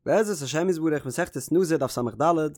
בעזרת השם יתברך מסכת נזיר דף ס"ד,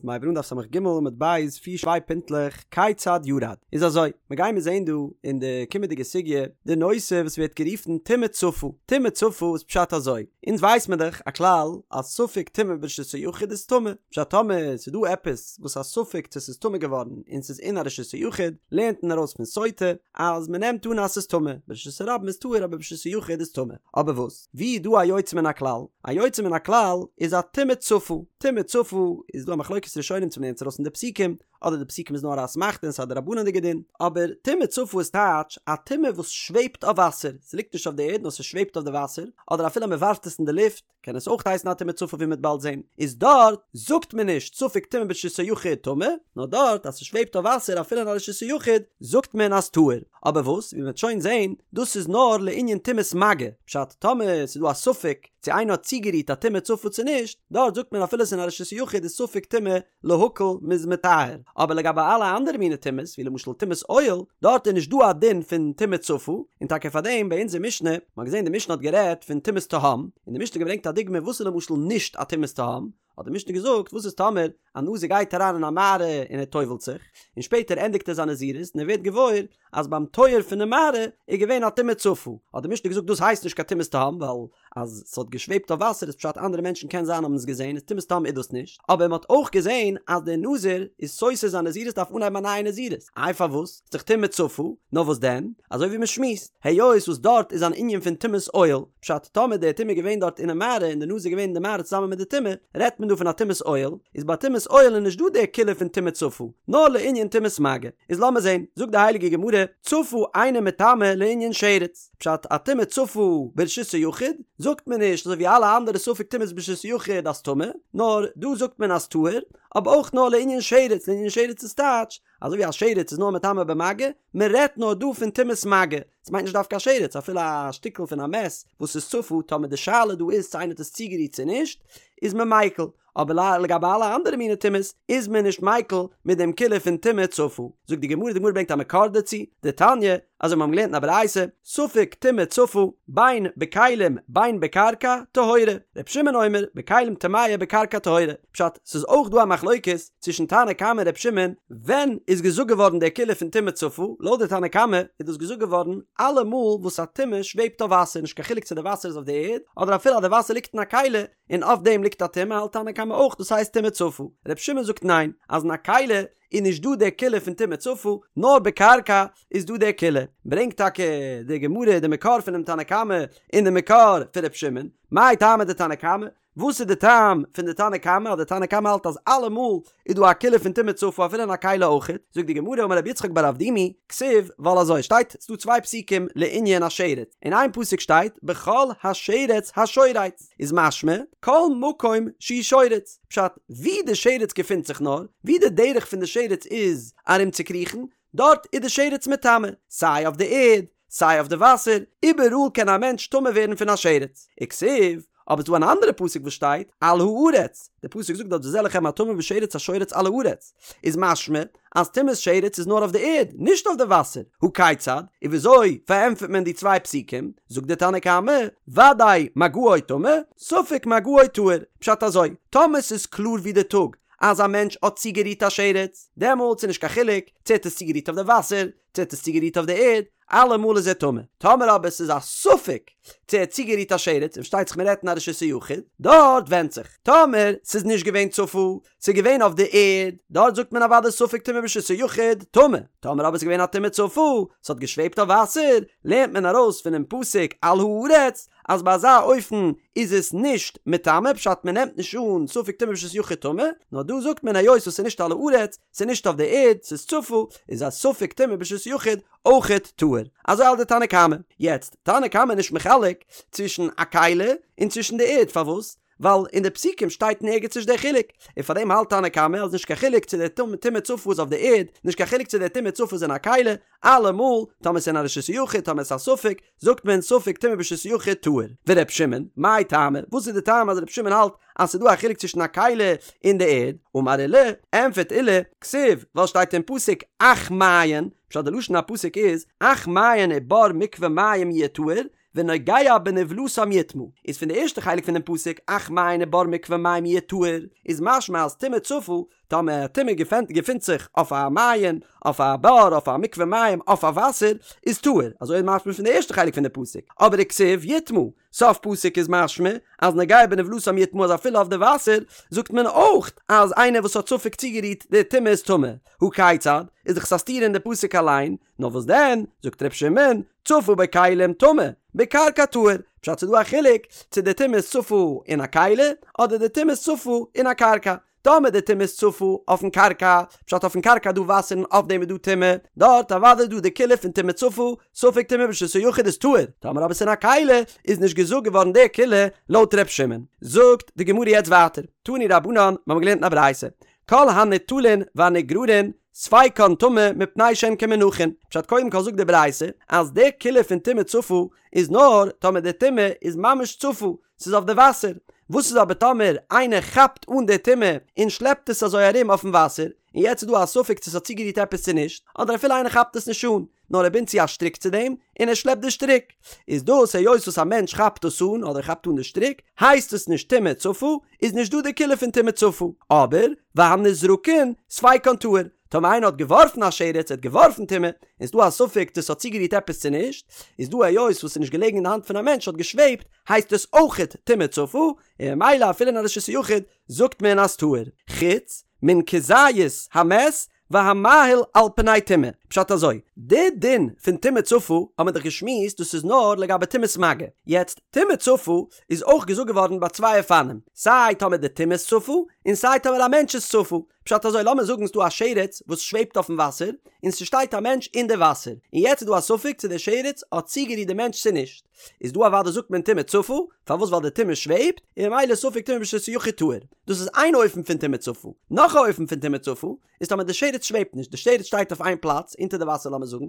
מ'הייבט אן דף ס"ג עמוד ב', פיר צוויי פינטלעך, כיצד ירד? איז אזוי, מ'גיימיר זעהן דא אין די קומענדיגע סוגיא די נושא וואס ווערט גערופן טומאה צפה, טומאה צפה איז פשט אזוי, אונז ווייס מיר דאך א כלל אז ספק טומאה ברשות היחיד איז טמא, פשט טאמער ס'איז דא עפעס וואס א ספק צו ס'איז טמא געווארן און ס'איז אין א רשות היחיד, לערנט מען ארויס פון סוטה אז מ'נעמט אן אז ס'איז טמא, ברשות הרבים איז טהור אבער ברשות היחיד איז טמא, אבער וואס? ווי איז דא א יוצא מן הכלל? א יוצא מן הכלל איז א טומאה צפה. טומאה צפה איז דא א מחלוקת ראשונים צו מ'לערנט עס ארויס פון די פסוקים, אדער די פסוקים איז נאר א אסמכתא און ס'איז א דרבנן'דיגע דין. אבער טומאה צפה איז טייטש א טומאה וואס שוועבט אויף וואסער, ס'ליגט נישט אויף די ערד נאר ס'שוועבט אויף די וואסער, אדער אפילו מ'ווארפט עס אין די לופט קען עס אויך הייסן א טומאה צפה ווי מ'וועט באלד זען. איז דארט זאגט מען נישט ספק טומאה ברשות היחיד טמא, נאר דארט אז ס'שוועבט אויף וואסער אפילו אין א רשות היחיד זאגט מען אז טהור. אבער וואס, ווי מ'וועט שוין זעהן, דאס איז נאר לענין טומאת מגע, פשט, טאמער ס'איז דא א ספק צו איינער האט צוגערירט א טומאה צפה צו נישט, דארט זאגט מען אפילו ס'איז אין א רשות היחיד איז ספק טומאה להקל מ'איז מטהר, אבער לגבי אלע אנדערע מיני טומאות, ווי למשל טומאת אוהל, דארט איז נישט דא א דין פון טומאה צפה, און טאקע פארדעם ביי אונזער משנה, מ'האט געזעהן די משנה האט גערעדט פון טומאת תהום, און די משנה האט געברענגט א דוגמא וואס איז למשל נישט א טומאת תהום, האט די משנה געזאגט, וואס איז טאמער א נזיר גייט אריין אין א מערה און ער טובל'ט זיך, און שפעטער ענדיגט ער זיין נזירות און ער ווערט געוואויר אז ביים טויער פונעם מערה איז געווען א טומאה צפה, האט די משנה געזאגט דאס הייסט נישט קיין טומאת תהום ווייל אז ס'האט געשוועבט אויף וואסער איז פשט אנדערע מענטשן קען זיין האבן עס געזען איז טומאת תהום איז דאס נישט, אבער מ'האט אויך געזען אז דער נזיר איז סותר זיין נזירות דארף אנהייבן א נייע נזירות, איי פארוואס? ס'איז דאך טומאה צפה, נאר וואס דען? אזוי ווי מ'שמועסט, היות וואס דארט איז אן ענין פון טומאת אוהל, פשט, טאמער די טומאה איז געווען דארט אינעם מערה און די נזיר איז געווען אין די מערה צוזאמען מיט די טומאה, רעדט מען דא פון א טומאת אוהל, איז ביי טומאת אוהל איז נישט דא די קולא פון טומאה צפה, נאר לענין טומאת מגע. איז לאמיר זען, זאגט די הייליגע גמרא, צפה אינה מטמאה לענין שרץ, פשט, א טומאה צפה ברשות היחיד, זאגט מען נישט אזוי ווי אלע אנדערע ספק טומאות ברשות היחיד אז טמא, נאר דא זאגט מען אז טהור, אבער אויך נאר לענין שרץ, לענין שרץ איז טייטש, אזוי ווי א שרץ איז נאר מטמא במגע, מען רעדט נאר דא פון טומאת מגע, עס מיינט נישט דווקא א שרץ, אפילו א שטיקל פון א מת וואס איז צפה, טאמער די שאלה דא איז צו איינער האט עס צוגערירט צו נישט, איז מען מיקל, אבער לגבי אלע אנדערע מיני טומאות איז מען נישט מיקל מיט דעם קולא פון טומאה צפה. זאגט די גמרא, די גמרא ברענגט א מקור דערצו, דתניא, אזוי מיר האבן געלערנט אין א ברייתא, ספק טומאה צפה, בין בכלים בין בקרקע, טהורה, ר' שמעון אומר, בכלים טמאה בקרקע טהורה, פשט, ס'איז אויך דא א מחלוקת צווישן תנא קמא און ר' שמעון, ווען איז געזאגט געווארן די קולא פון טומאה צפה, לויט די תנא קמא איז דאס געזאגט געווארן אלע מאל וואס א טומאה שוועבט אויף וואסער, נישט קיין חילוק צו די וואסער איז אויף די ערד, אדער אפילו אז די וואסער ליגט אין א כלי, און אויף דעם ליגט א טומאה האלט תנא קמא אויך דאס הייסט טומאה צפה, ר' שמעון זאגט ניין, אז אין א כלי איז נישט דא די קולא פון טומאה צפה, נאר בקרקע איז דא די קולא. ברענגט טאקע די גמרא די מקור פונעם תנא קמא און די מקור פון ר' שמעון, מאי טעמא דתנא קמא? וואס איז די טעם פון די תנא קמא אז די תנא קמא האלט אז אלעמאל איז דא א קולא פון טומאה צפה אפילו אין א כלי אויכעט? זאגט די גמרא אמר רב יצחק בר אבדימי, כתיב, ווייל אזוי שטייט, ס'דא צוויי פסוקים לענין א שרץ, אין איין פסוק שטייט בכל השרץ השורץ, איז משמע כל מקום שהוא שורץ, פשט, ווי די שרץ געפינט זיך נאר, ווי די דרך פון די שרץ איז ארומצוקריכן, דארט איז די שרץ מטמא, סיי אויף די ערד, סיי אויף די וואסער, איבעראל קען א מענטש טמא ווערן פון א שרץ. וכתיב, אבער ס'דא אן אנדערע פסוק וואס שטייט, על הארץ, די פסוק זאגט דארט וזה לכם הטמא בשרץ השורץ על הארץ, איז משמע אז טומאת שרץ איז נאר אויף די ערד, נישט אויף די וואסער, הא כיצד, און וויאזוי פארענטפערט מען די צוויי פסוקים, זאגט די תנא קמא, ודאי מגעו טמא, ספק מגעו טהור, פשט אזוי, טאמער ס'איז קלאר ווי די טאג אז א מענטש האט צוגערירט א שרץ, דעמאלטס איז נישט קיין חילוק צו ער האט עס צוגערירט אויף די וואסער, צו ער האט עס צוגערירט אויף די ערד, אלעמאל איז ער טמא. טאמער אבער ס'איז א ספק צו ער האט צוגערירט א שרץ, און פארשטייט זיך מ'רעדט אין א רשות היחיד, דארט ווענדט זיך. טאמער ס'איז נישט געווען צפה, ס'איז געווען אויף די ערד, דארט זאגט מען אוודאי ספק טומאה ברשות היחיד, טמא. טאמער אבער ס'איז געווען א טומאה צפה, ס'האט געשוועבט אויף וואסער, לערנט מען ארויס פונעם פסוק על הארץ, אז ביי אזא אופן איז עס נישט מטמא, פשט מ'נעמט נישט אן ספק טומאה ברשות יחיד טמא, נאר דא זאגט מען היות וואס ס'איז נישט על הארץ, ס'איז נישט אויף די ערד, ס'איז צפה, איז א ספק טומאה ברשות יחיד אויכעט טהור. אזוי האלט די תנא קמא. יעצט, תנא קמא איז נישט מחלק צווישן א כלי און צווישן די ערד, פארוואס? ווייל אין די פסוקים שטייט אין ערגעץ נישט דער חילוק, און פאר דעם האלט תנא קמא אז נישט קיין חילוק צו די טומאה צפה איז אויף די ערד, נישט קיין חילוק צו די טומאה צפה איז אין א כלי, אלעמאל, טאמער ס'איז אין א רשות היחיד, טאמער ס'איז א ספק, זאגט מען ספק טומאה ברשות היחיד טהור. ור' שמעון, מאי טעמא, וואס איז די טעם אז ר' שמעון האלט אז ס'איז דא א חילוק צווישן א כלי און די ערד? אמר עולא, ענפערט עולא, כתיב, ווייל שטייט אין פסוק אך מעיין, פשט די לשון הפסוק איז, אך מעיין ובור מקווה מים יהיה טהור, ונוגע בנבלתם יטמא, איז פון די ערשטע חלק פונעם פסוק אך מעיין ובור מקווה מים יהיה טהור, איז משמע אז טומאה צפה, טאמער א טומאה געפינט זיך אויף א מעיין, אויף א בור, אויף א מקווה מים, אויף א וואסער, איז טהור, אזוי איז משמע פון די ערשטע חלק פון די פסוק, אבער וכתיב יטמא, סוף פסוק איז משמע אז נוגע בנבלתם יטמא אז אפילו אויף די וואסער זאגט מען אויך אז איינער וואס האט ספק צוגערירט די טומאה איז טמא, הא כיצד? איז דאך עס א סתירה אין די פסוק אליין, נאר וואס דען, זאגט ר' שמעון, צפה בכלים טמא, בקרקע טהור, פשט ס'איז דא א חילוק צו די טומאה איז צפה אין א כלי אדער די טומאה איז צפה אין א קרקע, טאמער די טומאה איז צפה אויפן קרקע, פשט אויפן קרקע איז דא וואסער און אויף דעם איז דא טומאה, דארט אוודאי איז דא די קולא פון טומאה צפה, ספק טומאה ברשות היחיד איז טהור, טאמער אבער ס'איז אין א כלי איז נישט געזאגט געווארן די קולא לויט ר' שמעון. זאגט די גמרא יעצט ווייטער, תנו רבנן, מיר האבן געלערנט אין א ברייתא, כל הניטלין והנגררין ספיקן טמא מפני שהן כמונחין, פשט קודם כל זאגט די ברייתא אז די קולא פון טומאה צפה איז נאר טאמער די טומאה איז ממש צפה, ס'איז אויף די וואסער, וואס איז אבער טאמער איינער כאפט אן די טומאה און שלעפט עס אזוי ארום אויפן וואסער, און יעצט איז דא א ספק צו ס'האט צוגערירט עפעס צו נישט, אדער אפילו איינער כאפט עס נישט אן, נאר ער בינדט צו א שטריק צו דעם, און ער שלעפט די שטריק, איז דאס היות וואס א מענטש כאפט עס אן אדער כאפט אן די שטריק, הייסט עס נישט טומאה צפה, איז נישט דא די קולא פון טומאה צפה, אבער והנזרקין ספיקן טהור, טאמער איינער האט געווארפן א שרץ, ער האט געווארפן טומאה, און ס'דא א ספק צו ס'האט צוגערירט עפעס צו נישט, איז דא היות וואס ס'איז נישט געלעגן אין די האנט פון א מענטש האט געשוועבט, הייסט עס אויכעט טומאה צפה, און ממילא אפילו אין א רשות היחיד זאגט מען אז טהור, חוץ מן כזית המת והמאהיל על פני טומאה. פשט אזוי, די דין פון טומאה צפה האט מען דאך געשמועסט דאס איז נאר לגבי טומאת מגע, יעצט טומאה צפה איז אויך געזאגט געווארן ביי צוויי אופנים, סיי טאמער די טומאה איז צפה, און סיי טאמער א מענטש איז צפה, פשט אזוי לאמיר זאגן ס'דא א שרץ וואס שוועבט אויפן וואסער, און ס'שטייט א מענטש אין די וואסער, און יעצט איז דא א ספק צו די שרץ האט צוגערירט די מענטש צו נישט, איז דא אוודאי זאגט מען טומאה צפה, פארוואס ווייל די טומאה שוועבט, און ממילא ספק טומאה ברשות היחיד טהור, דאס איז איין אופן פון טומאה צפה, נאך א אופן פון טומאה צפה, איז טאמער די שרץ שוועבט נישט, די שרץ שטייט אויף איין פלאץ, אונטער די וואסער לאמיר זאגן,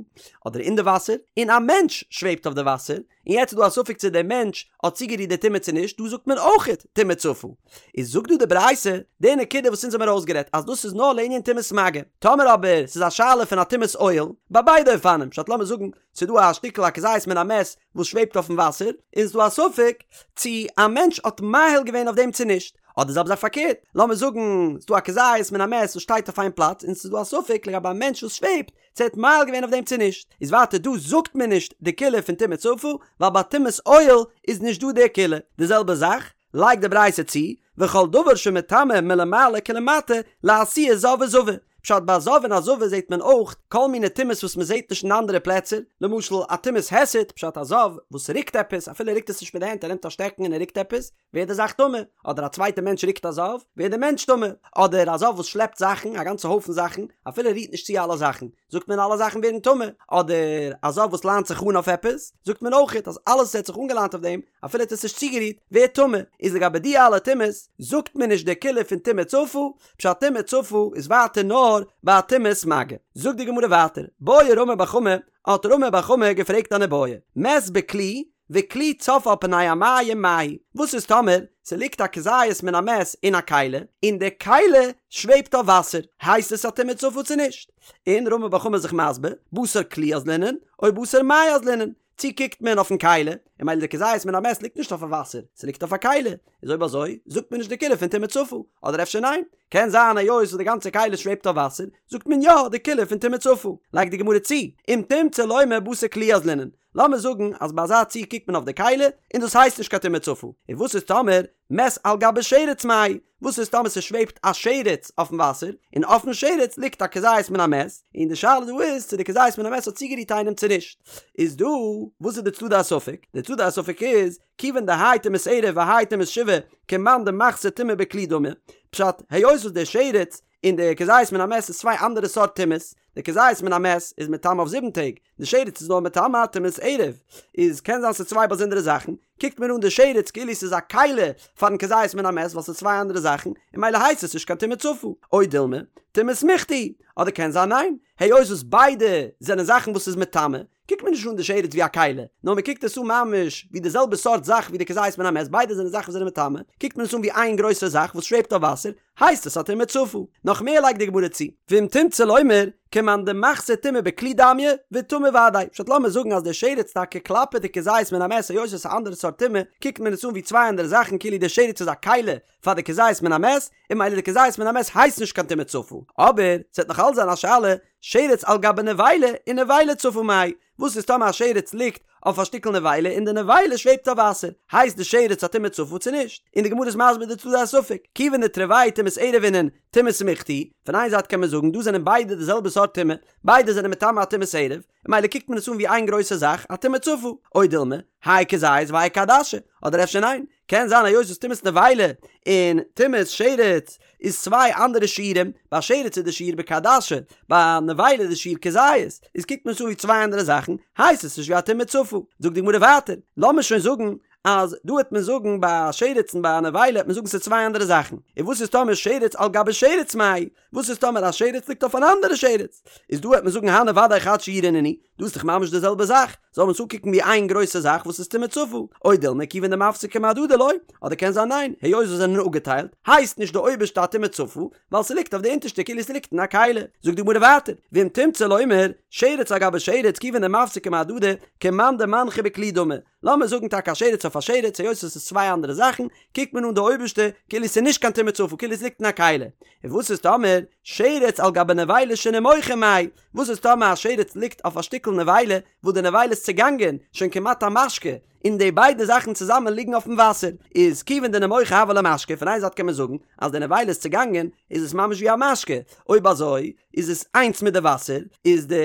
אדער אין די וואסער, און א מענטש שוועבט אויף די וואסער, און יעצט איז דא א ספק צו דער מענטש האט צוגערירט די טומאה צו נישט, דא זאגט מען אויכעט טומאה צפה. איז זאגט דא די ברייתא די נקודה וואס אונז האמיר אויסגערעדט אז דאס איז נאר לענין טומאת מגע, טאמער אבער ס'איז א שאלה פון א טומאת אוהל, ביי ביידע אופנים, פשט לאמיר זאגן ס'איז דא א שטיקל א כזית מן המת וואס שוועבט אויפן וואסער, און ס'איז דא א ספק צו א מענטש האט מאהיל געווען אויף דעם צו נישט, אדער זעלבע זאך פארקערט, לאמיר זאגן ס'איז דא א כזית מן המת וואס שטייט אויף איין פלאץ און ס'איז דא א ספק לגבי א מענטש וואס שוועבט, צו ער האט מאהיל געווען אויף דעם צו נישט, איז ווייטער דא זאגט מען נישט די קולא פון טומאה צפה, ווייל ביי טומאת אוהל איז נישט דא די קולא, די זעלבע זאך לייגט די ברייתא צו, וכל דבר שמטמא מלמעלה כלמטה לאתויי זב וזבה, פשט ביי א זב און א זבה זעט מען אויך כל מיני טומאות וואס מען זעט נישט אין אנדערע פלעצער, למשל א טומאת היסט, פשט א זב וואס רוקט עפעס, אפילו ער רוקט עס נישט מיט די הענט ער נעמט א שטעקן און ער רוקט עפעס, ווערט די זאך טמא, אדער א צווייטע מענטש רוקט א זב, ווערט די מענטש טמא, אדער א זב וואס שלעפט זאכן, א גאנצע הויפן זאכן, אפילו ער רירט נישט צו אלע זאכן, זאגט מען אלע זאכן ווערן טמא, אדער א זב וואס ליינט זיך אן אויף עפעס, זאגט מען אויכעט אז אלעס וואס ער האט זיך אנגעליינט אויף דעם, אפילו ער האט עס נישט צוגערירט, ווערט טמא, איז לגבי די אלע טומאות, זאגט מען נישט די קולא פון טומאה צפה, פשט טומאה צפה איז ווייטער נאר ביי א טומאת מגע. זאגט די גמרא ווייטער, בעי רמי בר חמא, האט רמי בר חמא געפרעגט אן איבעיא, מת בכלי, וכלי צף על פני המים מהו, וואס איז טאמער ס'ליגט א כזית מן המת אין א כלי, און די כלי שוועבט אויף וואסער, הייסט עס א טומאה צפה צו נישט? און רמי בר חמא איז זיך מסביר, בתר כלי אזלינן, או בתר מיא אזלינן, צו קוקט מען אויפן כלי, און ממילא די כזית מן המת ליגט נישט אויף א וואסער, ס'ליגט אויף א כלי, איז אויב אזוי זאגט מען נישט די קולא פון טומאה צפה, אדער אפשר ניין? קען זיין היות וואס די גאנצע כלי שוועבט אויף וואסער, זאגט מען יא די קולא פון טומאה צפה. לייגט די גמרא צו, אם תמצא לומר בתר כלי אזלינן, לאמיר זאגן אז ביי אזא ציור קוקט מען אויף די כלי און דאס הייסט נישט קיין טומאה צפה, און וואס איז טאמער מת על גבי שרץ מהו, וואס איז טאמער ס'שוועבט א שרץ אויפן וואסער, און אויפן שרץ ליגט א כזית מן המת, און די שאלה דא איז צו די כזית מן המת האט צוגערירט איינעם צו נישט, איז דא וואס איז די צדדי הספק? די צדדי הספק איז, כיוון דהאי טומאת ערב והאי טומאת שבעה, כמאן דמחתא טומאה בכלי דמי, פשט, היות וואס די שרץ און די כזית מן המת איז צוויי אנדערע סארט טומאות, די כזית מן המת איז מטמא אויף זיבן טעג, די שרץ איז נאר מטמא טומאת ערב, איז קען זיין ס'איז צוויי באזונדערע זאכן, קוקט מען אן די שרץ כאילו ס'איז א כלי פארן כזית מן המת ווייל ס'איז צוויי אנדערע זאכן, און ממילא הייסט עס נישט קיין טומאה צפה, או דילמא, טומאת מיכתי, אדער קען זיין ניין, היות וואס ביידע זענען זאכן וואס איז מטמא, קוקט מען נישט אן די שרץ ווי א כלי, נאר מען קוקט עס אן ממש ווי די זעלבע סארט זאך ווי די כזית מן המת, ביידע זענען זאכן וואס זענען מטמא, קוקט מען עס אן ווי איין גרויסע זאך וואס שוועבט אויף וואסער, הייסט עס א טומאה צפה. נאך מער לייגט די גמרא צו, ואם תמצא לומר, כמאן דמחתא טומאה בכלי דמיא, וטמא ודאי, פשט לאמיר זאגן אז די שרץ טאקע כלפי די כזית מן המת היות עס איז א אנדערע סארט טומאה, קוקט מען עס אן ווי צוויי אנדערע זאכן כאילו די שרץ איז א כלי פאר די כזית מן המת, און ממילא די כזית מן המת הייסט נישט קיין טומאה צפה. אבער, ס'וועט נאך אלץ זיין א שאלה, שרץ על גבי נבילה ונבילה צפה מאי, וואס איז טאמער א שרץ ליגט אויף א שטיקל נבילה און די נבילה שוועבט אויף וואסער, הייסט די שרץ א טומאה צפה צו נישט? און די גמרא איז מסביר די צדדי הספק, כיוון דתרוייהו טומאת ערב אינון טומאה סמיכתא היא, פון איין זייט קען מען זאגן דא זענען ביידע די זעלבע סארט טומאה, ביידע זענען מטמא א טומאת ערב, ממילא קוקט מען עס אן ווי איין גרויסע זאך, א טומאה צפה, או דילמא, האי כזית והאי כעדשה, אדער אפשר ניין, קען זיין היות וואס טומאת נבילה און טומאת שרץ איז צוויי אנדערע שיעורים, ביי שרץ איז די שיעור בכעדשה, ביי נבילה איז די שיעור כזית, איז קוקט מען עס אן ווי צוויי אנדערע זאכן, הייסט עס נישט ווי א טומאה צפה. זאגט די גמרא ווייטער, לאמיר שוין זאגן אז דא העט מען זאגן ביי א שרץ און ביי א נבילה העט מען זאגן ס'איז צוויי אנדערע זאכן, און וואס איז טאמער שרץ על גבי שרץ מאי, וואס איז טאמער א שרץ ליגט אויף אן אנדערע שרץ? איז דא העט מען זאגן הני ודאי חד שיעורא נינהו, דא איז דאך ממש די זעלבע זאך, זאל מען עס אנקוקן ווי איין גרויסע זאך וואס איז טומאה צפה, או דילמא כיוון דמפסקי מהדדי לא, אדער קען זיין ניין, היות זיי זענען אפגעטיילט, הייסט נישט די אויבערשטע א טומאה צפה, ווייל ס'ליגט אויף די אונטערשטע כאילו ס'ליגט אין א כלי. זאגט די גמרא ווייטער, ואם תמצא לומר, שרץ על גבי שרץ כיוון דמפסקי מהדדי, כמאן דמנחא בכלי דמי, לאמיר זאגן טאקע א שרץ אויף א שרץ, היות עס איז צוויי אנדערע זאכן, קוקט מען אן די אויבערשטע כאילו עס איז נישט קיין טומאה צפה, כאילו עס ליגט אין א כלי. און וואס איז טאמער שרץ על גבי נבילה שנימוחה מאי? וואס איז טאמער א שרץ ליגט אויף א שטיקל נבילה וואס די נבילה איז צעגאנגען, שוין כמעט א משקה, און די ביידע זאכן צוזאמען ליגן אויפן וואסער, איז כיוון דנימוחה הוה ליה משקה, פון איין זייט קען מען זאגן אז די נבילה איז צעגאנגען, איז עס ממש ווי א משקה, אויב אזוי איז עס איינס מיט די וואסער, איז די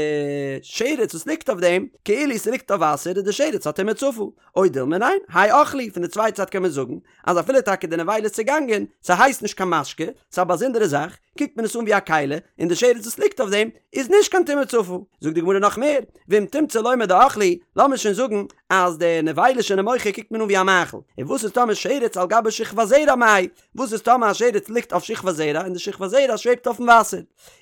שרץ וואס ליגט אויף דעם כאילו ס'ליגט אויף וואסער איז די שרץ א טומאה צפה, או דילמא ניין, האי אוכלא הוא, פון די צווייטע זייט קען מען זאגן אז אפילו טאקע די נבילה איז צעגאנגען, ס'הייסט נישט קיין משקה, ס'איז א באזונדערע זאך, קוקט מען עס אן ווי א כלי, און די שרץ וואס ליגט אויף דעם איז נישט קיין טומאה צפה. זאגט די גמרא נאך מער, ואם תמצא לומר דאוכלא הוא, לאמיר שוין זאגן אז די נבילה שנימוחה קוקט מען אן ווי א מאכל, און וואס איז טאמער שרץ על גבי שכבת זרע מאי, וואס איז טאמער א שרץ ליגט אויף שכבת זרע און די שכבת זרע שוועבט אויפן וואסער?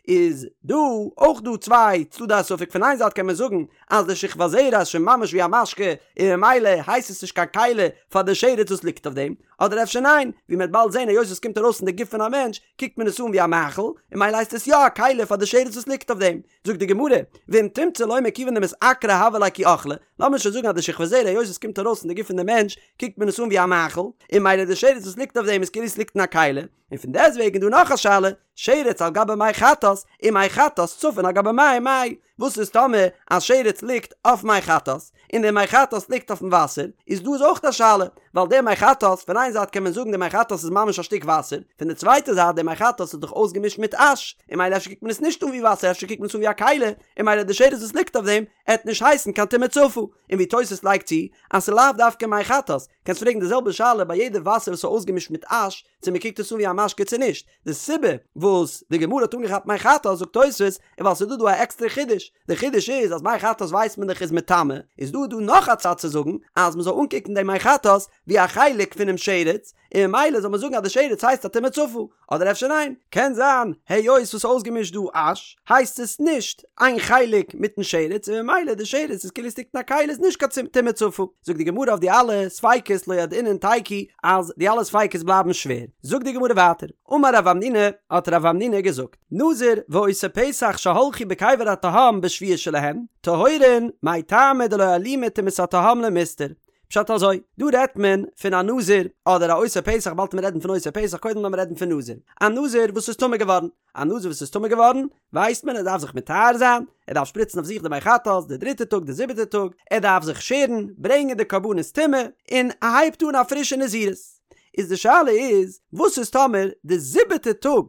איז דא אויך דא צוויי צדדי הספק פון איין זייט קען מען זאגן אז די שכבת זרע איז שוין ממש ווי א משקה און ממילא הייסט עס נישט קיין כלי פאר די שרץ וואס ליגט אויף דעם, אדער אפשר ניין, ווי מען וועט באלד זען היות עס קומט ארויס פון די גוף פון א מענטש קוקט מען עס אן ווי א מאכל און ממילא הייסט עס יא א כלי פאר די שרץ וואס ליגט אויף דעם. זאגט די גמרא, ואם תמצא לומר כיוון דמתעקרא הוה ליה כי אוכלא, לאמיר שוין זאגן אז די שכבת זרע היות עס קומט ארויס פון די גוף פון די מענטש קוקט מען עס אן ווי א מאכל, און ממילא די שרץ וואס ליגט אויף דעם איז כאילו עס ליגט אין א כלי, און פון דעסטוועגן איז דא נאך א שאלה, שרץ על גבי מי חטאת, ומי חטאת צפין על גבי מים מאי, וואס איז טאמער א שרץ ליגט אויף מי חטאת, און די מי חטאת ליגט אויפן וואסער, איז דא איז אויך א שאלה, ווייל די מי חטאת, פון איין זייט קען מען זאגן די מי חטאת איז ממש א שטיק וואסער, פון די צווייטע זייט די מי חטאת איז דאך אויסגעמישט מיט אש, און ממילא אפשר קוקט מען עס נישט אן ווי וואסער אפשר קוקט מען עס אן ווי א כלי, און ממילא די שרץ וואס ליגט אויף דעם עט נישט הייסן קיין טומאה צפה, און ווי תוס' לייגט צו אז ס'איז לאו דווקא מי חטאת, קענסט פרעגן די זעלבע שאלה ביי יעדע וואסער וואס איז אויסגעמישט מיט אש, צו מען קוקט עס אן ווי א משקה צו נישט, די סיבה וואס די גמרא האט אנגעכאפט מי חטאת זאגט תוס' איז ווייל ס'איז דא דא א עקסטערע חידוש, די חידוש איז אז מי חטאת ווייסט מען דאך איז מטמא, איז דא דא נאך א צד צו זאגן אז מען זאל אנקוקן דעם מי חטאת ווי א חלק פונעם שרץ, און ממילא זאל מען זאגן אז די שרץ הייסט א טומאה צפה, אדער אפשר ניין, קען זיין היות וואס אויסגעמישט דא אש, הייסט עס נישט איין חלק מיטן שרץ און ממילא די שרץ איז כאילו עס ליגט אין א כלי איז נישט קיין טומאה צפה. זאגט די גמרא אויף די אלע ספיקות לא ידעינן תיקו אז די אלע ספיקות בלייבן שווער. זאגט די גמרא ווייטער, אמר רב המנונא, האט רב המנונא געזאגט, נזיר ועושה פסח שהלכו בקבר התהום בשביעי שלהם, טהורין, מאי טעמא דלא אלימא טומאת התהום למיסתר, פשט אזוי, דא רעדט מען פון א נזיר אדער א עושה פסח, באלד וועט מען רעדן פון עושה פסח, קודם לאמיר רעדן פון נזיר. א נזיר וואס איז טמא געווארן, א נזיר וואס איז טמא געווארן, ווייסט מען ער דארף זיך מטהר זיין, ער דארף שפריצן אויף זיך די מי חטאת די דריטע טאג די זיבעטע טאג, ער דארף זיך שערן, ברענגען די קרבנות טומאה, און ער הייבט אן א פרישע נזירות. איז די שאלה איז, וואס איז טאמער די זיבעטע טאג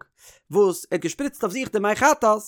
וואס ער האט געשפריצט אויף זיך די מי חטאת,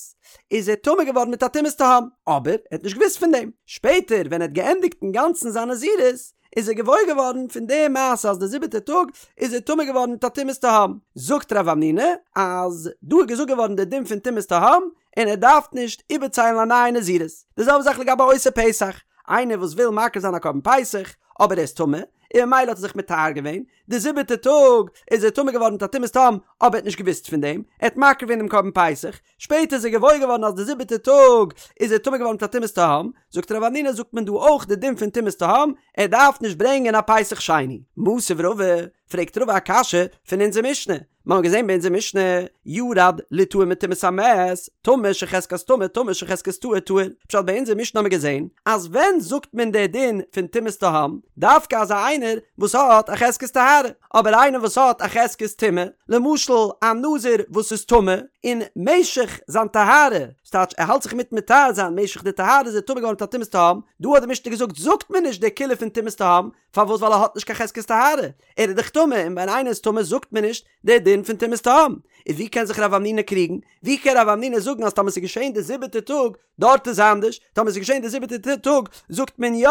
איז ער טמא געווארן מיט א טומאת תהום, אבער ער האט נישט געוואוסט פון דעם. שפעטער ווען ער האט געענדיגט אינגאנצן זיין נזירות, איז ער געוואויר געווארן פון די מעשה אז די זיבעטע טאג איז ער טמא געווארן מיט א טומאת תהום. זאגט רב המנונא אז דא איז געזאגט געווארן די דין פון טומאת תהום, און ער דארף נישט איבערציילן א נייע נזירות. די זעלבע זאך לגבי עושה פסח, איינער וואס וויל מקריב זיין א קרבן פסח, אבער ער איז טמא, און ממילא האט ער זיך מטהר געווען, די זיבעטע טאג איז ער טמא געווארן מיט א טומאת תהום, אבער ער האט נישט געוואוסט פון דעם, ער האט מקריב געווען דעם קרבן פסח, שפעטער איז ער געוואויר געווארן אז די זיבעטע טאג איז ער טמא געווארן מיט א טומאת תהום, זאגט רב המנונא זאגט מען דא אויך די דין פון טומאת תהום, ער דארף נישט ברענגען א פסח שני. מתיב רבא, פרעגט רבא א קשיא פון אונזער משנה, מיר האבן געזען ביי אונזער משנה, ירד ליטהר מטומאת המת, טמא שחזקת טמא טמא שחזקת טהור טהור, פשט ביי אונזער משנה האבן מיר געזען אז ווען זאגט מען די דין פון טומאת תהום, דווקא אזא איינער וואס האט א חזקת טהרה, אבער איינער וואס האט א חזקת טומאה, למשל א נזיר וואס איז טמא, און משך זיין טהרה, ס'טייטש ער האלט זיך מיטן מטהר זיין, משך די טהרה איז ער טמא געווארן מיט א טומאת תהום, דא האט די משנה געזאגט זאגט מען נישט די קולא פון טומאת תהום, פארוואס ווייל ער האט נישט קיין חזקת טהרה, ער איז דאך טמא, און ווען איינער איז טמא זאגט מען נישט די דין פון טומאת תהום, איז ווי קען זיך רב המנונא קריגן? ווי קען רב המנונא זאגן אז טאמער ס'איז געשען די זיבעטע טאג דארט איז אנדערש, טאמער ס'איז געשען די זיבעטע טאג זאגט מען יא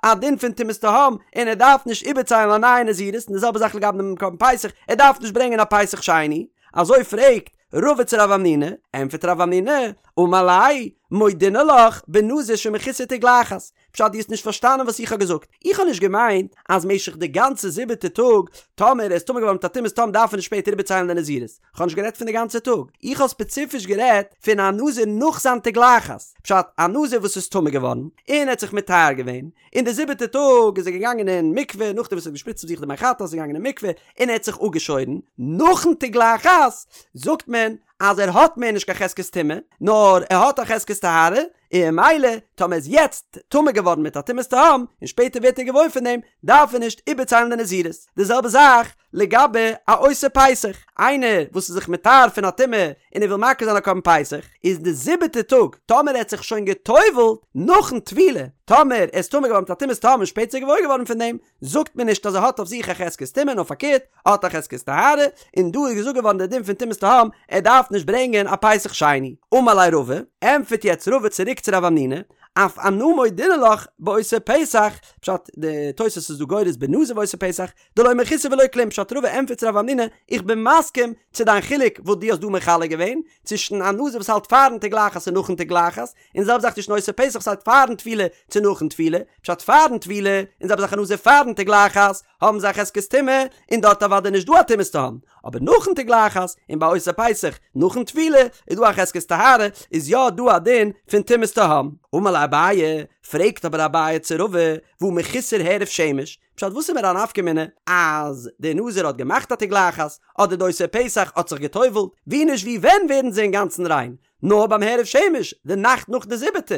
א דין פון טומאת תהום און ער דארף נישט איבערציילן א נייע נזירות, און די זעלבע זאך לגבי דעם קרבן פסח, ער דארף נישט ברענגען א פסח שני, אזוי פרעגט רבא צו רב המנונא, ענטפערט רב המנונא, אמר ליה, מודינא לך בנזיר שמחוסר תגלחת, פשט דו האסט נישט פארשטאנען וואס איך האב געזאגט, איך האב נישט געמיינט אז משך די גאנצע זיבעטע טאג טאמער ער איז טמא געווארן מיט א טומאת תהום דארף ער נישט שפעטער איבערציילן די נזירות, איך האב נישט גערעדט פון די גאנצע טאג, איך האב ספעציפיש גערעדט פון א נזיר נאך זיין תגלחת, פשט א נזיר וואס איז טמא געווארן און ער האט זיך מטהר געווען, און די זיבעטע טאג איז ער געגאנגען אין מקווה נאכדעם וואס ער האט געשפריצט אויף זיך די מי חטאת איז ער געגאנגען אין מקווה און ער האט זיך אפגעשוירן, נאכן תגלחת זאגט מען אז ער האט מער נישט קיין חזקת טומאה, נאר ער האט א חזקת טהרה, און ממילא טאמער ער איז יעצט טמא געווארן מיט א טומאת תהום, און שפעטער ווערט ער געוואויר פון דעם, דארף ער נישט איבערציילן די נזירות. די זעלבע זאך לגבי א עושה פסח, איינער וואס איז זיך מטהר פון א טומאה און ער וויל מקריב זיין א קרבן פסח, איז די זיבעטע טאג, טאמער ער האט זיך שוין גע'טובל'ט נאכן טבילה, טאמער ער איז טמא געווארן מיט א טומאת תהום און שפעטער געוואויר געווארן פון דעם, זאגט מען נישט אז ער האט אויף זיך א חזקת טומאה נאר פארקערט, ער האט א חזקת טהרה, און דא איז געזאגט געווארן דער דין פון טומאת תהום, ער דארף נישט ברענגען א פסח שני. אמר ליה רבא, ענטפערט יעצט רבא צוריק צו רב המנונא, אף אנא מודינא לך בעושה פסח, פשט, די תוס' איז דא גורס בנזיר ועושה פסח, דלא מחוסר ולא כלום, פשט רבא ענטפערט צו רב המנונא, איך בין מסכים צו דיין חילוק וואס דו האסט דא מחלק געווען, צווישן א נזיר וואס האלט פארן תגלחת און נאכן תגלחת, און זעלבע זאך צווישן עושה פסח וואס האלט פארן טבילה צו נאכן טבילה, פשט פארן טבילה, און זעלבע זאך א נזיר פארן תגלחת, האבן זיי א חזקת טומאה, און דארט אוודאי נישט דא א טומאת תהום, אבער נאכן תגלחת, און ביי עושה פסח נאכן טבילה, איז דא א חזקת טהרה, איז יא דא א דין פון טומאת תהום. אמר ליה אביי, פרעגט אבער אביי צו רבא, והא מחוסר הערב שמש, פשט וואס איז מיר א נפקא מינה אז דער נזיר האט געמאכט א תגלחת, אדער די עושה פסח האט זיך גע'טובל'ט, ווי נישט ווי ווען ווערן זיי אינגאנצן ריין? נאר ביים הערב שמש, די נאכט נאך די זיבעטע,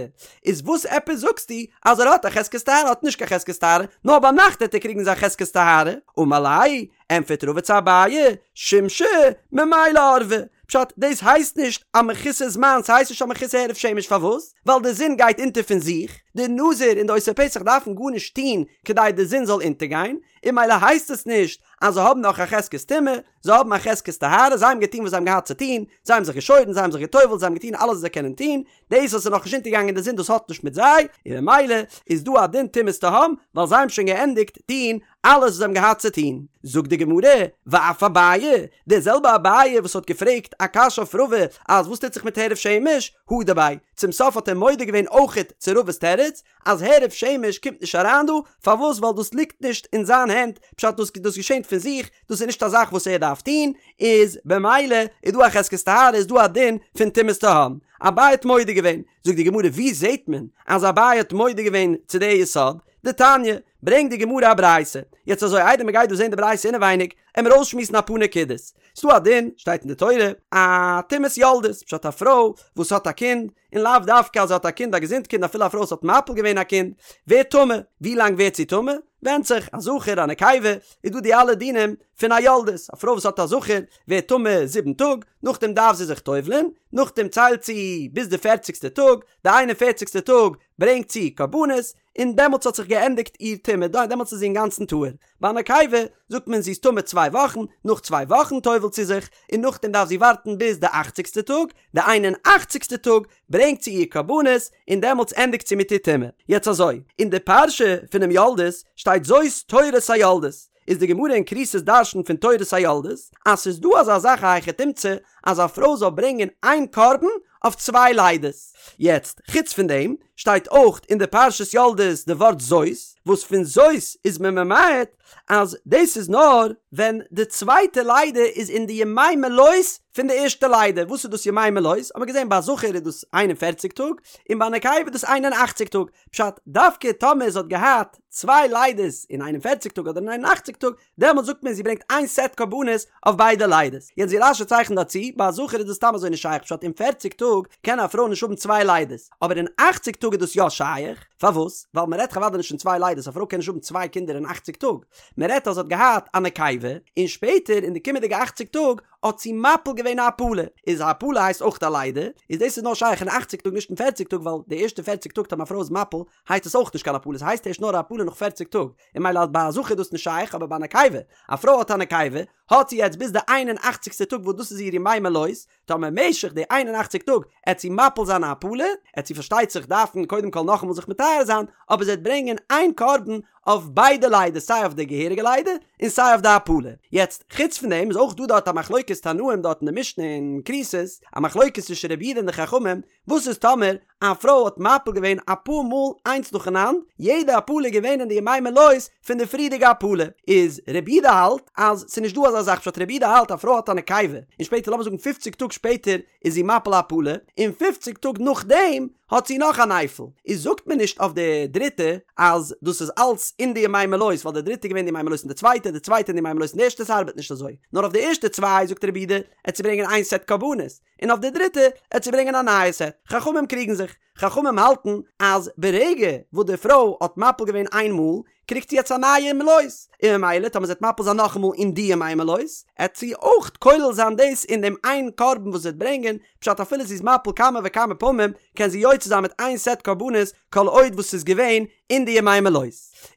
איז וואס עפעס זאגסטו אז ער האט א חזקת טהרה האט נישט קיין חזקת טהרה, נאר ביינאכט העט ער קריגן זיין חזקת טהרה, אמר ליה, ענטפערט רבא צו אביי, שימשא ממילא ערבא, פשט, דאס הייסט נישט א מחוסר זמן, ס'הייסט נישט א מחוסר הערב שמש, פארוואס? ווייל די זון גייט אונטער פון זיך, די נזיר און די עושה פסח דארפן גארנישט טון כדי די זון זאל אונטערגיין, און ממילא הייסט עס נישט אז זיי האבן נאך א חזקת טומאה, זיי האבן א חזקת טהרה, זיי האבן געטון וואס זיי האבן געהאט צו טון, זיי האבן זיך געשוירן, זיי האבן זיך גע'טובל'ט, זיי האבן געטון אלעס וואס זיי קענען טון, דאס וואס איז נאכנישט אונטערגעגאנגען די זון דאס האט נישט מיט זיי, און ממילא איז דא א דין טומאת תהום, ווייל זיי האבן שוין געענדיגט טון אלעס וואס זיי האבן געהאט צו טון. זאגט די גמרא, ואף אביי, דער זעלבע אביי וואס האט געפרעגט א קשיא אויף רבא אז וואס טוט זיך מיט הערב שמש, הודה ביה, צום סוף האט ער מודה געווען אויכעט צו רבא'ס תירוץ, אז הערב שמש קומט נישט אריין דא, פארוואס ווייל דאס ליגט נישט אין זיין הענט, פשט דאס דאס געשענט פון זיך, דאס איז נישט א זאך וואס ער דארף טון, איז במילא איז דא א חזקת טהרה איז דא א דין פון טומאת תהום. אביי האט מודה געווען, זאגט די גמרא ווי זעט מען אז אביי האט מודה געווען צו די יסוד, דתניא, ברענגט די גמרא א ברייתא, יעצט אזוי איידער מען גייט דא זען די ברייתא אינעווייניג, עמיר אויסשמועסן אפאר נקודות, ס'דא א דין, שטייט אין די תורה, א טומאת יולדת, פשט א פרוי וואס האט א קינד, און לאו דווקא אז זי האט א קינד א געזונט קינד אפילו א פרוי וואס האט מפיל געווען א קינד ווערט טמא, ווי לאנג ווערט זי טמא? ווענדט זיך, א זכר א נקבה, איז דא די אלע דינים פון א יולדת, א פרוי וואס האט א זכר ווערט טמא זיבן טאג, נאכדעם דארף זי זיך טובל'ען, נאכדעם ציילט זי ביז די פערציגסטע טאג, די איין און פערציגסטע טאג ברענגט זי קרבנות, און דעמאלטס האט זיך געענדיגט איר טומאה, דעמאלטס איז זי אינגאנצן טהור. ביי א נקבה זאגט מען זי איז טמא צוויי וואכן, נאך צוויי וואכן טובל'ט זי זיך, און נאכדעם דארף זי ווארטן ביז די אכציגסטע טאג, די איין און אכציגסטע טאג ברענגט זי איר קרבנות, און דעמאלטס ענדיגט זי מיט איר טומאה. יעצט אזוי, אין די פרשה פונעם יולדת שטייט זאת תורת היולדת, איז די גמרא אין כריתות דרש'נט פון תורת היולדת, אז ס'איז דא אזא זאך א היכי תמצא אז א פרוי זאל ברענגען איין קרבן אויף צוויי לידות. יעצט, חוץ פון דעם, שטייט אויך אין די פרשת יולדת די ווארט זאת, וואס פון זאת איז מען ממעט אז דאס איז נאר ווען די צווייטע לידה איז אין די ימי מלאות פון די ערשטע לידה, וואס איז דאס ימי מלאות? האט מען געזען ביי א זכר איז דאס 41 טאג, און ביי א נקבה איז דאס 81 טאג, פשט, דווקא טאמער זי האט געהאט צוויי לידות אין 41 טאג אדער אין 81 טאג, דעמאלט זאגט מען זי ברענגט איין סעט קרבנות אויף ביידע לידות. יעצט ווי רש"י צייכנט דא צו, ביי א זכר איז דאס סתם אזוי נישט שייך פשט אין פערציג טאג קען א פרוי נישט האבן צוויי לידות, אבער אין אכציג טאג איז דאס יא שייך, פארוואס? ווייל מען רעדט אוודאי נישט פון צוויי לידות, א פרוי קען נישט האבן צוויי קינדער אין אכציג טאג, מען רעדט אז זי האט געהאט א נקבה, און שפעטער אין די קומענדיגע אכציג טאג האט זי מפיל געווען א הפלה, איז א הפלה הייסט אויך א לידה, איז דאס איז נאר שייך אין אכציג טאג נישט אין פערציג טאג ווייל די ערשטע פערציג טאג טאמער א פרוי איז מפיל הייסט עס אויך נישט קיין הפלה, ס'הייסט ערשט נאר א הפלה נאך פערציג טאג, און ממילא אז ביי א זכר איז דאס נישט שייך אבער ביי א נקבה, א פרוי האט א נקבה, האט זי יעצט ביז די איין און אכציגסטע טאג וואס דאס איז איר ימי מלאות, טאמער משך די איין און אכציג טאג עט זי מפיל זיין א הפלה, עט זי פארשטייט זיך דארפן קודם כל נאכאמאל זיך מטהר זיין, אבער זי עט ברענגען איין קרבן אויף ביידע לידות סיי אויף די געהעריגע לידה און סיי אויף די הפלה. יעצט חוץ פון דעם איז אויך דא דארט א מחלוקת תנאים דארט אין די משנה אין כריתות, א מחלוקת צווישן רבי יהודה און די חכמים, וואס איז טאמער א פרוי האט מפיל געווען אפאר מאל איינס נאכאנאנד, יעדע הפלה איז געווען אין די ימי מלאות פון די פריערדיגע הפלה, איז רבי יהודה האלט אז ס'איז נישט דא אזא זאך פשט רבי יהודה האלט א פרוי האט א נקבה און שפעטער לאמיר זאגן פופציג טאג שפעטער איז זי מפיל א הפלה און פופציג טאג נאכדעם האט זי נאך א נייפל, איז זאגט מען נישט אויף די דריטע אז דאס איז אלץ אין די ימי מלאות ווייל די דריטע איז געווען די ימי מלאות פון די צווייטע, די צווייטע אין די ימי מלאות פון די ערשטע ס'ארבעט נישט אזוי, נאר אויף די ערשטע צוויי זאגט רבי יהודה עט זי ברענגען איין סעט קרבנות, און אויף די דריטע עט זי ברענגען א נייע סעט. חכמים קריגן זיך. חכמים האלטן אז ברגע וואס די פרוי האט מפיל געווען איין מאל, קריגט זי יעצט א נייע מלאות, און ממילא טאמער זי וועט מפיל זיין נאכאמאל אין די ימי מלאות, עט זי אויך כולל זיין דאס אין דעם איין קרבן וואס זי וועט ברענגען, פשט אפילו זי איז מפיל כמה וכמה פעמים, קען זי יוצא זיין מיט איין סעט קרבנות כל עוד וואס ס'איז געווען אין די ימי מלאות.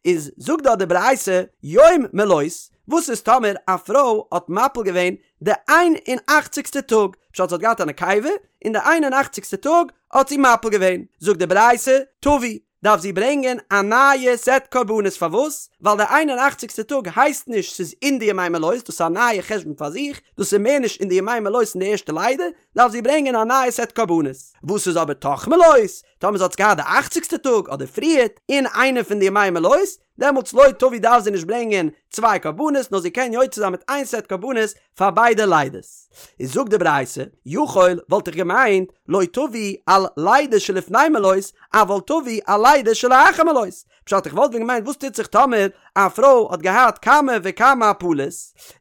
איז זאגט דארט די ברייתא, יום מלאות, וואס איז טאמער א פרוי האט מפיל געווען די איין און אכציגסטע טאג, פשט זי האט געהאט א נקבה, און די איין און אכציגסטע טאג האט זי מפיל געווען, זאגט די ברייתא, תביא, דארף זי ברענגען א נייע סעט קרבנות, פארוואס? ווייל די איין און אכציגסטע טאג הייסט נישט ס'איז אין די ימי מלאות, דאס איז א נייע חשבון פאר זיך, דאס איז מער נישט אין די ימי מלאות אין די ערשטע לידה, דארף זי ברענגען א נייע סעט קרבנות. וואס איז אבער תוך מלאות? טאמער זי האט עס געהאט די אכציגסטע טאג אדער פריערט, אין איינע פון די ימי מלאות, דעמאלטס לא תביא דארף זי נישט ברענגען צוויי קרבנות נאר זי קען יוצא זיין מיט איין סעט קרבנות פאר ביידע לידות. איז זאגט די ברייתא, יכול וואלט איך געמיינט לא תביא על לידה שלפני מלאות אבל תביא על לידה שלאחר מלאות, פשט איך וואלט ווען געמיינט וואס טוט זיך טאמער א פרוי האט געהאט כמה וכמה הפלות,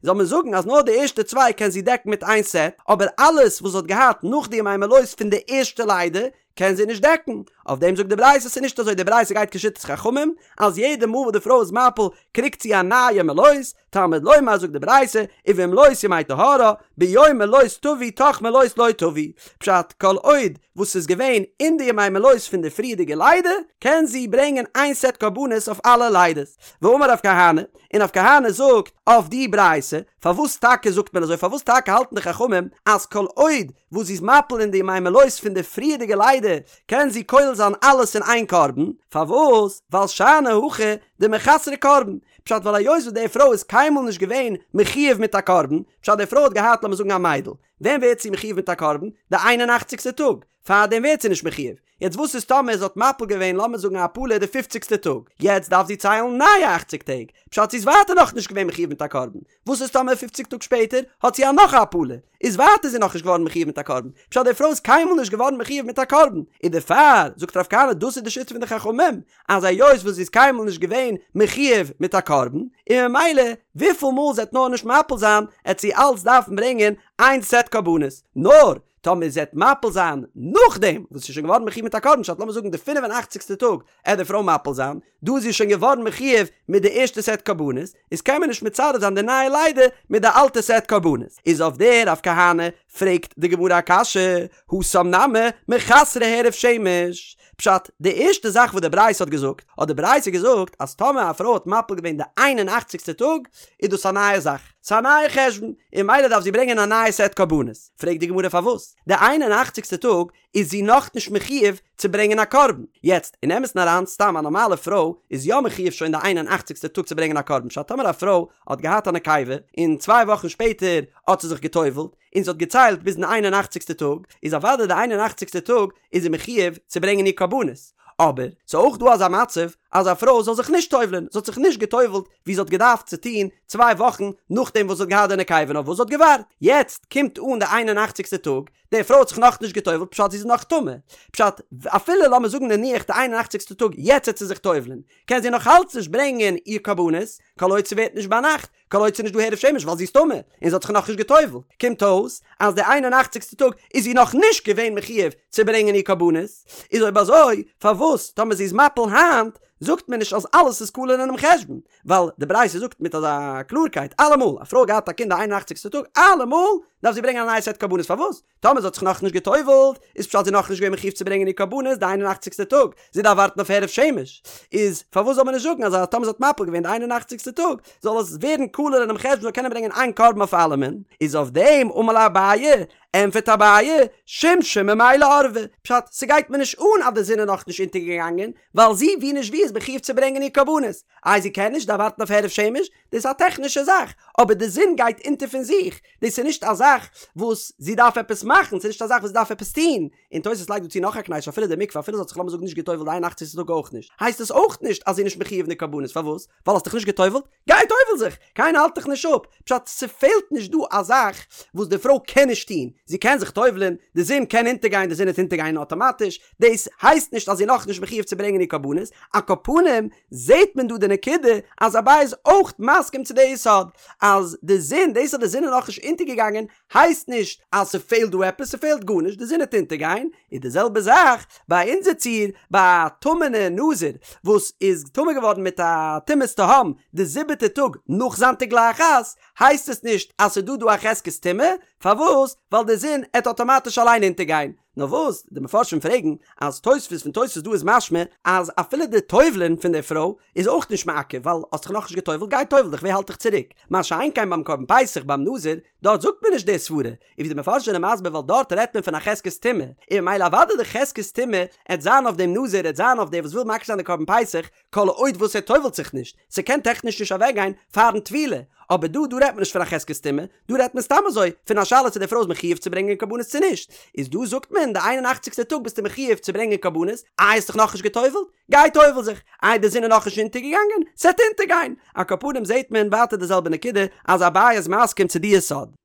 זאל מען זאגן אז נאר די ערשטע צוויי קען זי דעקן מיט איין סעט, אבער אלעס וואס זי האט געהאט נאך די ימי מלאות פון די ערשטע לידה קען זי נישט דעקן. אויף דעם זאגט די ברייתא ס'איז נישט אזוי, די ברייתא גייט כשיטת חכמים אז יעדע מאל וואס די פרוי איז מפיל קריגט זי א נייע מלאות, תלמוד לומר זאגט די ברייתא ובמלאות ימי טהרה, ביום מלאות תביא תוך מלאות לא תביא, פשט כל עוד וואס ס'איז געווען אין די ימי מלאות פון די פריערדיגע לידה קען זי ברענגען איין סעט קרבנות אויף אלע לידות. ואמר רב כהנא, און רב כהנא זאגט אויף די ברייתא, פארוואס טאקע זאגט מען אזוי פארוואס טאקע האלטן די חכמים אז כל עוד וואס זי איז מפיל אין די ימי מלאות פון די פריערדיגע לידה קען זי כולל זיין אלעס אין איין קרבן, פארוואס? ווייל שאני הכא דמחסרא קרבן, פשט ווייל היות וואס די פרוי איז קיינמאל נישט געווען מחויב מיט א קרבן, פשט די פרוי האט געהאט לאמיר זאגן א מיידל, ווען ווערט זי מחויב מיט א קרבן? די איין און אכציגסטע טאג, פארדעם ווערט זי נישט מחויב, יעצט וואס איז טאמער זי האט מפיל געווען לאמיר זאגן א הפלה די פופציגסטע טאג, יעצט דארף זי ציילן נייע אכציג טעג, פשט זי איז ווייטער נאכנישט געווען מחויב מיט א קרבן, וואס איז טאמער פופציג טאג שפעטער האט זי א נאך א הפלה, איז ווייטער זי נאכנישט געווארן מחויב מיט א קרבן, פשט די פרוי איז קיינמאל נישט געווארן מחויב מיט א קרבן, און דערפאר זאגט רב כהנא דאס איז די שיטה פון די חכמים, אז היות וואס זי איז קיינמאל נישט געווען מחויב מיט א קרבן, און ממילא וויפיל מאל זי עט נאר נישט מפיל זיין, עט זי אלץ דארפן ברענגען איין סעט קרבנות, נאר טאמער זי עט מפיל זיין נאכדעם וואס זי איז שוין געווארן מחויב מיט א קרבן, פשט לאמיר זאגן די פינף און אכציגסטע טאג עט די פרוי מפיל זיין, דא איז זי שוין געווארן מחויב מיט די ערשטע סעט קרבנות, איז קען מען נישט מצרף זיין די נייע לידה מיט די אלטע סעט קרבנות. איז אויף דער רב כהנא פרעגט די גמרא א קשיא, התם נמי מחסרא הערב שמש. פשט, די ערשטע זאך וואס די ברייתא האט געזאגט, האט די ברייתא געזאגט אז טאמער א פרוי האט מפיל געווען די איין און אכציגסטע טאג, איז דאס א נייע זאך, ס'איז א נייע חשבון, און ממילא דארף זי ברענגען א נייע סעט קרבנות. פרעגט די גמרא פארוואס די איין און אכציגסטע טאג איז זי נאכנישט מחויב צו ברענגען א קרבן. יעצט, אין אמת'ן אריין, סתם א נארמאלע פרוי איז יא מחויב שוין די איין און אכציגסטע טאג צו ברענגען א קרבן, פשט טאמער א פרוי האט געהאט א נקבה, און צוויי וואכן שפעטער האט זי זיך גע'טובל'ט, און זי האט געציילט ביזן איין און אכציגסטע טאג, איז אוודאי די איין און אכציגסטע טאג איז זי מחיוב צו ברענגען איר קרבנות. אבער, ס'איז אויך דא אזא מצב אז א פרוי זאל זיך נישט טובל'ען, זי האט זיך נישט געטובל'ט ווי זי האט געדארפט צו טון צוויי וואכן נאכדעם וואס זי האט געהאט די נקבה נאר וואס זי האט געווארט, יעצט קומט אן די איין און אכציגסטע טאג, די פרוי האט זיך נאכנישט געטובל'ט פשט זי איז נאך טמא, פשט אפילו לאמיר זאגן נניח די איין און אכציגסטע טאג יעצט וועט זי זיך טובל'ען, קען זי נאך אלץ נישט ברענגען איר קרבנות, כל עוד ס'ווערט נישט ביינאכט, כל עוד ס'איז נישט דא הערב שמש ווייל זי איז טמא און זי האט זיך נאכנישט גע'טובל'ט, קומט אויס אז די איין און אכציגסטע טאג איז זי נאך נישט געווען מחיוב צו ברענגען איר קרבנות, איז אויב אזוי פארוואס טאמער זי איז מפיל היינט זאגט מען נישט אז אלעס איז כלול אינעם חשבון, ווייל די ברייתא זאגט מיט אזא קלארקייט אלעמאל א פרוי האט געהאט א קינד די איין און אכציגסטע טאג אלעמאל דארף זי ברענגען א נייע סעט קרבנות פארוואס טאמער זי האט זיך נאכנישט גע'טובל'ט, איז פשט זי נאכנישט געווען מחיוב צו ברענגען איר קרבנות די איין און אכציגסטע טאג, זי דארף ווארטן אויף הערב שמש, איז פארוואס זאל מען נישט זאגן אז טאמער זי האט מפיל געווען די איין און אכציגסטע טאג, זאל עס ווערן כלול אינעם חשבון זאל קענען ברענגען איין קרבן אויף אלעמען, איז אויף דעם אמר ליה אביי, ענפערט אביי, שמשא ממילא ערבא, פשט, ס'גייט מיר נישט אן אז די זון איז נאכנישט אונטערגעגאנגען, ווייל זי ווי נישט ווי איז מחיוב צו ברענגען איר קרבנות, איי זי קען נישט, דארף ווארטן אויף הערב שמש, דאס איז א טעכנישע זאך, אבער די זון גייט אונטער פון זיך, דאס איז נישט א זאך וואס זי דארף עפעס מאכן, ס'איז נישט א זאך וואס זי דארף עפעס טון, און תוס' לייגט דא צו נאך א קנייטש אפילו די מקווה אפילו זי האט זיך לאמיר זאגן נישט גע'טובל'ט די איין און אכציגסטע טאג אויך נישט, הייסט עס אויך נישט אז זי איז נישט מחיוב אין די קרבנות, פארוואס? ווייל האסט דיך נישט גע'טובל'ט? גיי טובל זיך! קיינער האלט דיך נישט אפ, פשט ס'פעלט נישט דא א זאך וואס די פרוי קען נישט טון, זי קען זיך טובל'ען, די זון קען אונטערגיין, די זון וועט אונטערגיין אטאמאטיש, דאס הייסט נישט אז זי איז נאכנישט מחיוב צו ברענגען איר קרבנות, על כל פנים זעהט מען דא די נקודה אז אביי איז אויך מסכים צו די יסוד אז די זון, דאס אז די זון איז נאכנישט אונטערגעגאנגען הייסט נישט אז ס'פעלט דא עפעס, ס'פעלט גארנישט, די זון וועט אונטערגיין, איז די זעלבע זאך ביי אונזער ציור ביי א טמא'נע נזיר וואס איז טמא געווארן מיט א טומאת תהום די זיבעטע טאג נאך זיין תגלחת, הייסט עס נישט אז ס'דא דא א חזקת טומאה, פארוואס? ווייל די זון עט אטאמאטיש אליין אונטערגיין, נאר וואס, די מפרשים פרעגן אז תוספות פון תוספות דא איז משמע אז אפילו די טובל'ען פון די פרוי איז אויך נישט מעכב ווייל האסט דיך נאכנישט געטובל'ט גיי טובל דיך ווער האלט דיך צוריק, מה שאין כן ביים קרבן פסח ביים נזיר דארט זאגט מען נישט די סברה, און ווי די מפרשים זענען מסביר ווייל דארט רעדט מען פון א חזקת טומאה, און ממילא אוודאי די חזקת טומאה עט זיין אויף דעם נזיר עט זיין אויף דער וואס וויל מקריב זיין די קרבן פסח כל עוד וואס ער טובל'ט זיך נישט, ס'קען טעכניש נישט אוועקגיין פארן טבילה, אבער דא דא רעדט מען נישט פון א חזקת טומאה, דא רעדט מען סתם אזוי פון א שאלה צו די פרוי איז מחיוב צו ברענגען קרבנות צו נישט, איז דא זאגט מען די איין און אכציגסטע טאג ביסטו מחיוב צו ברענגען קרבנות, איי האסט דיך נאכנישט געטובל'ט? גיי טובל זיך, איי די זון איז נאכנישט אונטערגעגאנגען? ס'עט אונטערגיין! על כל פנים זעהט מען ווייטער די זעלבע נקודה אז אביי איז מסכים צו די יסוד.